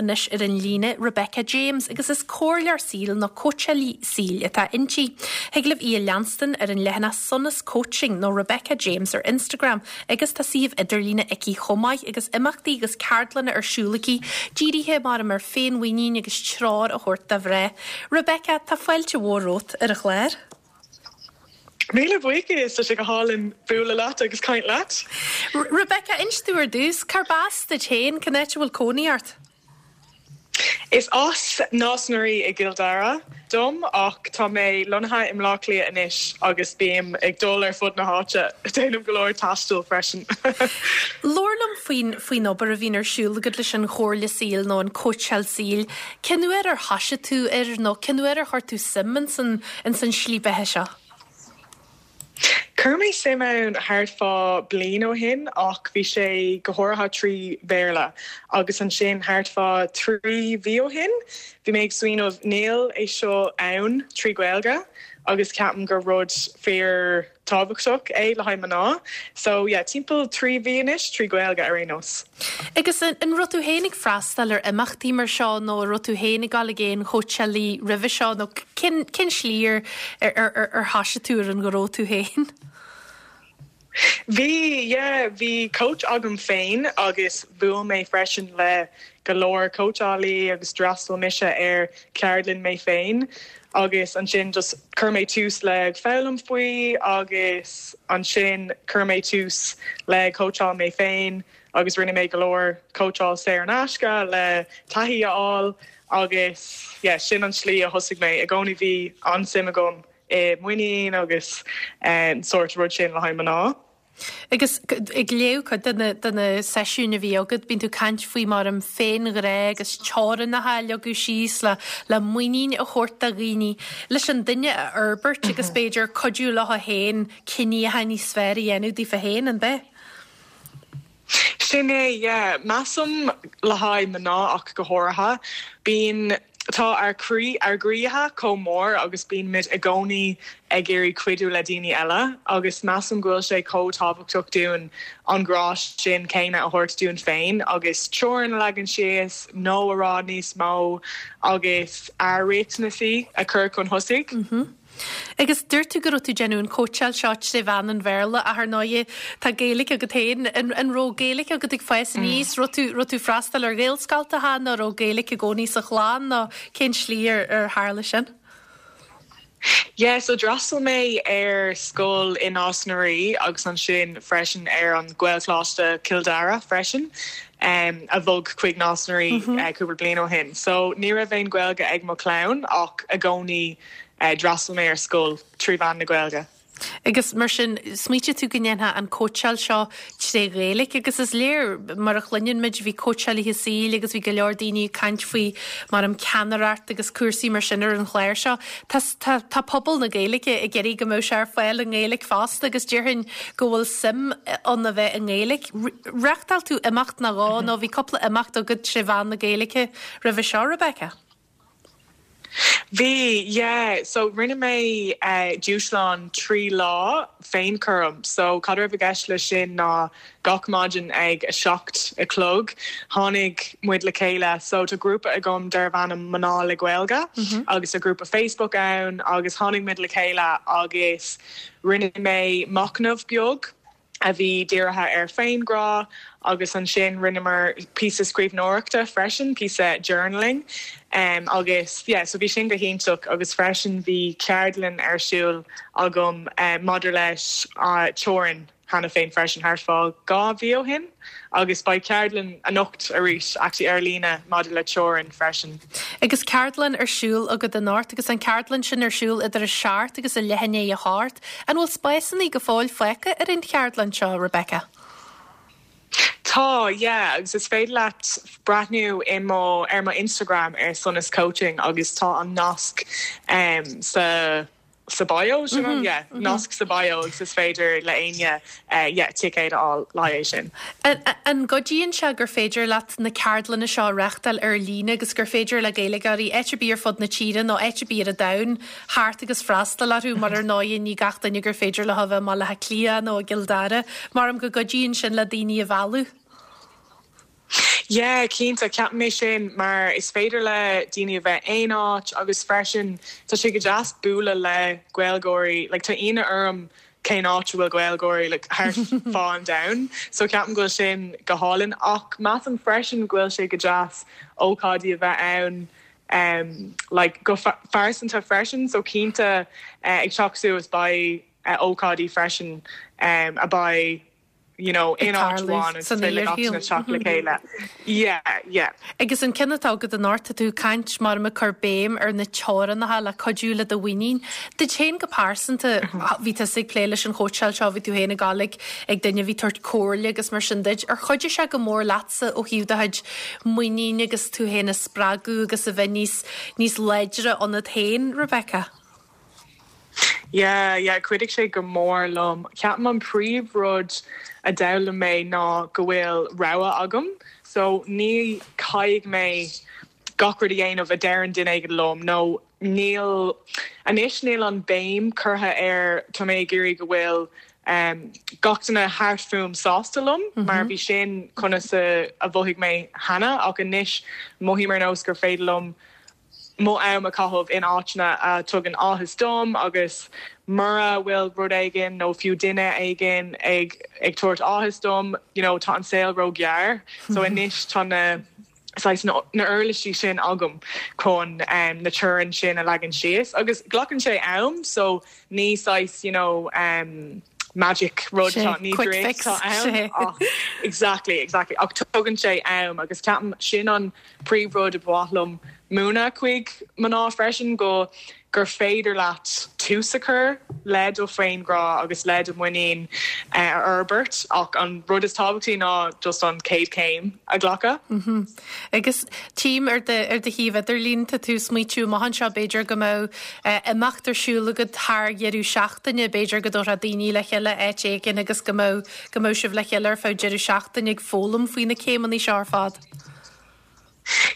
Anois ar an líne Rebecca James agus is comhairleoir saoil nó cóitseálaí saoil atá inti. Thig libh í a leanstan ar an leathanach Sonas Coaching nó Rebecca James ar Instagram agus tá suíomh idirlíne aici chomh maith agus imeachtaí agus ceardlanna ar siúl aici dírithe maram ar féinmhuinín agus treoir a thabhairt do mhná. Rebecca, tá fáilte mhór romhat ar an chlár. Míle buíochas, tá sé go hálainn bualadh leat agus caint leat. Rebecca, inis domh ar dtús, cárb as duit féin, cén áit a bhfuil cónaí ort? Is as Nás na Rí i gCill Dara dom ach tá mé lonnaithe i mBleá Cliath anois agus bím ag dul ar fud na háite, déanaim go leor taistil freisin. Labhair liom faoin faoin obair a bhíonn ar siúl agat leis an chomhairle saoil nó an cóitseáil saoil. Cén uair ar thoisigh tú air nó cén uair ar chuir tú suim ins an ins an slí beatha seo? Chuir mé suim ann thart fá bliain ó shin ach bhí sé go háirithe trí Bhéarla agus ansin thart fá thrí mhí ó shin bhí mé ag smaoineamh níl é seo ann trí Ghaeilge agus ceapaim gur rud fíor tábhachtach é le haghaidh mná. So yeah, timpeall 3 mhí anois, trí Ghaeilge ar aon nós. Agus an raibh tú féin ag freastal ar imeachtaí mar seo nó an raibh tú féin ag dul ag aon chóitseálaí roimhe seo nó cén cén slí ar ar ar ar thoisigh tú ar an ghnó tú féin? Bhí, yeah, bhí coach agam féin agus bhuail mé freisin le go leor cóitseálaí agus d'fhreastail mise ar ceardlann mé féin agus ansin just chuir mé tús le foghlaim faoi agus ansin chuir mé tús le cóitseáil mé féin agus rinne mé go leor cóitseáil saor in aisce le taithí a fháil agus yeah sin an slí a thosaigh mé. I gcónaí bhí an-suim agam i muinín agus an sórt rud sin le haghaidh mná. Agus ag léamh cuid de na, de na seisiúin a bhí agat, bíonn tú ag caint faoi maram féinghrá agus teorainneacha a leagadh síos le, le muinín a thabhairt do dhaoine, leis an duine a fhorbairt agus b'fhéidir cuidiú leo féin cinní atá níos fearr a dhéanamh daofa féin, an b'ea? Sin é, yeah. Measaim le haghaidh mná ach go háirithe, bíonn, tá ár croí, ár gcroíthe chomh mór agus bíonn muid i gcónaí ag iarraidh cuidiú le daoine eile agus measaim go bhfuil sé chomh tábhachtach dúinn an grá sin céanna a thabhairt dúinn féin agus teorainn a leagan síos, no a rá níos mó agus ár riachtanaisí a chur chun thosaigh. Agus dúirt tú go raibh tú ag déanamh an cóitseáil seo tré mheán an Bhéarla ach ar ndóighe tá Gaeilge agat féin. An, an raibh Gaeilge agat ag fás aníos? Raibh tú, raibh tú freastal ar Ghaelscoltacha nó raibh Gaeilge i gcónaí sa chlann nó cén slí ar, ar tharla sin? Yeah, so d'fhreastail mé ar scoil i Nás na Rí agus ansin freisin ar an Ghaelcholáiste Cill Dara freisin, a bhog chuig Nás na Rí cúpla bliain ó shin. So ní raibh aon Ghaeilge ag mo chlann ach i gcónaí D'fhreastail mé ar scoil trí mheán na Gaeilge. Agus mar sin, smaoitigh tú go ndéanfá an cóitseáil seo tré Ghaeilge agus is léir, mar a chluineann muid, bhí cóitseálaithe saoil agus bhí go leor daoine ag caint faoi maram ceannaireacht agus cúrsaí mar sin ar an chlár seo. Tá, tá, tá pobal na Gaeilge ag iarraidh go mbeadh sé ar fáil i nGaeilge fosta agus déarfainn go bhfuil suim ann a bheith i nGaeilge. Reáchtáil tú imeacht nó dhó nó bhí cúpla imeacht agat tré mheán na Gaeilge roimhe seo, Rebecca? Bhí, yeah. So rinne mé dúshlán 3 lá féinchúram. So cad a raibh i gceist leis sin ná gach maidin ag 7 a chlog tháinig muid le chéile. So tá grúpa agam darbh ainm Mná le Gaeilge agus tá grúpa Facebook ann agus tháinig muid le chéile agus rinne mé machnamh beag. a bhí dírithe ar féinghrá agus ansin rinneamar píosa scríbhneoireachta freisin, píosa journaling agus yeah so bhí sin go hiontach agus freisin bhí ceardlann ar siúl agam maidir leis teorainn cheana féin freisin thart fá 2 mhí ó shin agus beidh ceardlann anocht arís actually ar líne maidir le teorainn freisin. Agus ceardlann ar siúl agat anocht agus an ceardlann sin ar siúl idir a seacht agus a leath i ndiaidh a hocht. An bhfuil spásanna go fóill fágtha ar an cheardlann seo, Rebecca? Tá, yeah, agus is féidir leat breathnú i mo, ar mo Instagram ar Sonas Coaching agus tá an nasc sa, sa bio, sin an, yeah, nasc sa bio agus is féidir le éinne, yeah, ticéad a fháil le haghaidh é sin. An gcuidíonn sé gur féidir leat na ceardlanna seo a reáchtáil ar líne agus gur féidir le Gaeilgeoirí áit ar bith ar fud na tíre nó áit ar bith ar an domhan theacht agus freastal orthu mar ar ndóighe ní gach duine gur féidir leo a bheith i mBaile Átha Cliath nó i gCill Dara. Maram go gcuidíonn sin le daoine a mhealladh. Yeah, cinnte, ceapaim é sin mar is féidir le daoine a bheith aon áit agus freisin tá sé go deas bualadh le Gaeilgeoirí, like tá ionadh orm cén áit a bhfuil Gaeilgeoirí like thart fá an domhan so ceapaim go bhfuil sin go hálainn ach measaim freisin go bhfuil sé go deas ócáidí a bheith ann um like go phearsanta freisin so cinnte ag teacht suas beidh ócáidí freisin um a beidh you know, in áit amháin agus is féidir le gach duine teacht le chéile. Yeah, yeah. Agus an ceann atá agat anocht, tá tú ag caint mar ag cur béim ar na teorainneacha le cuidiú le do mhuinín. Duit féin go pearsanta, bhí tusa ag plé leis an chóitseáil seo, bhí tú féin ag dul ag ag duine a bhí ag tabhairt comhairle agus mar sin duit. Ar chuidigh sé go mór leatsa ó thaobh do chuid muinín agus tú féin a spreagadh agus a bheith níos níos láidre ionat féin, Rebecca? Yeah, yeah, chuidigh sé go mór liom. Ceapaim an príomh rud a d'fhoghlaim mé ná go bhfuil rogha agam. So ní caithfidh mé gach rud a dhéanamh a deireann duine éigin liom nó níl, anois níl an béim curtha ar tá mé ag iarraidh go bhfuil um gach duine thart fúm sásta liom mar bhí sin conas a mhothaigh mé cheana ach anois mothaím ar nós gur féidir liom mo am a chaitheamh in áiteanna a tugann áthas dom agus mura bhfuil rud éigin nó fiú duine éigin ag ag tabhairt áthas dom, you know, tá an saol ró-ghearr. So anois tá na saghas na na uirlisí sin agam chun um na teorainn sin a leagan síos agus glacann sé am so ní saghas you know um magic rud atá ní quick fix atá ann ach exactly exactly ach tugann sé am agus ceapaim sin an príomhrud a ba mhaith liom múineadh chuig mná freisin, go gur féidir leat tús a chur le do féinghrá agus le do mhuinín a fhorbairt ach an rud is tábhachtaí ná just an chéad chéim a ghlacadh. Agus tchím ar do ar do shuíomh idirlín, tá tú ag smaoitiú amach anseo b'fhéidir go mbeadh imeacht ar siúl agat thar dheireadh seachtaine, b'fhéidir go dtabharfá daoine le chéile áit éigin agus go mbeadh go mbeadh sibh le chéile ar feadh deireadh seachtaine ag foghlaim faoi na céimeanna seo ar fad.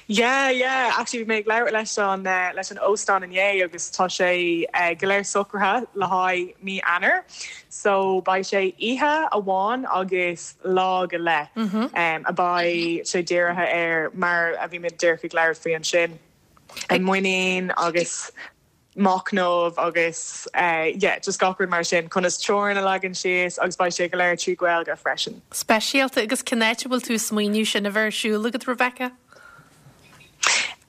Yeah, yeah, actually bhí mé ag labhairt leis an leis an óstán inné agus tá sé go léir socraithe le haghaidh mí Eanáir. So beidh sé oíche amháin agus lá go leith a beidh sé dírithe ar mar a bhí mé díreach ag labhairt faoi ansin, an muinín agus machnamh agus yeah just gach rud mar sin, conas teorainn a leagan síos agus beidh sé go léir trí Ghaeilge freisin. Speisialta agus cén áit a bhfuil tú ag smaoineamh sin a bheith ar siúl agat Rebecca?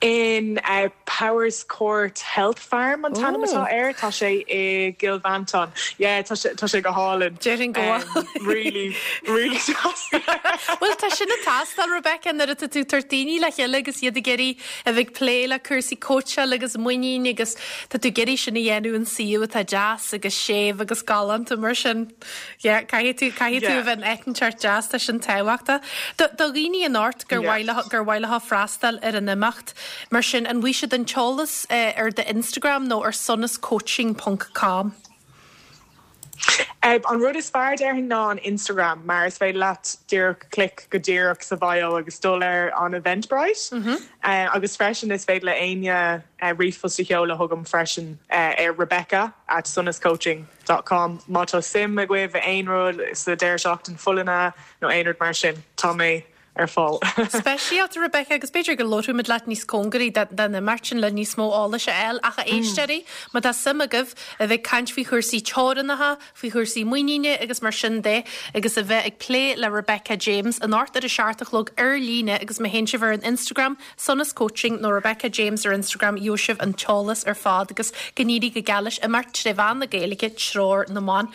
In Powerscourt Health Farm an t-ainm atá air, tá sé i gCill Mhantáin. Yeah tá sé tá sé go hálainn. Déarfainn go bhfuil. Really really deas. Bhuel tá sin ag teastáil Rebecca nuair atá tú ag tabhairt daoine le chéile agus iad ag iarraidh a bheith ag plé le cúrsaí cóitseáil agus muinín agus tá tú ag iarraidh sin a dhéanamh in suíomh atá deas agus séimh agus galánta mar sin. Yeah, caithfidh tú, caithfidh tú a bheith in áit inteacht deas, tá sin tábhachtach. Do, do dhaoine anocht gur mhaith leo, gur mhaith leo freastal ar an imeacht mar sin, an bhfaighidh siad an t-eolas ar do Instagram nó ar sonascoaching ponc com? An rud is fearr déarfainn ná an Instagram mar is féidir leat díreach click go díreach sa bhio agus dul ar an Eventbrite. Agus freisin is féidir le éinne ríomhphost a sheoladh chugam freisin ar Rebecca at sonascoaching dot com má tá suim agaibh i aon rud sa deireadh seachtain folláine nó aon rud mar sin. Tá mé ar fáil. Speisialta, Rebecca, agus b'fhéidir go labhróimid leat níos cóngaraí don imeacht sin le níos mó eolais a fháil. Ach a éisteoirí, má tá suim agaibh a bheith ag caint faoi chúrsaí teorannacha, faoi chúrsaí muiníne agus mar sin de, agus a bheith ag plé le Rebecca James anocht ar a seacht a chlog ar líne agus má théann sibh ar an Instagram, Sonas Coaching nó Rebecca James ar Instagram, gheobhaidh sibh an t-eolas ar fad agus go n-éirí go geal leis imeacht tré mheán na Gaeilge, Treoir na mBan.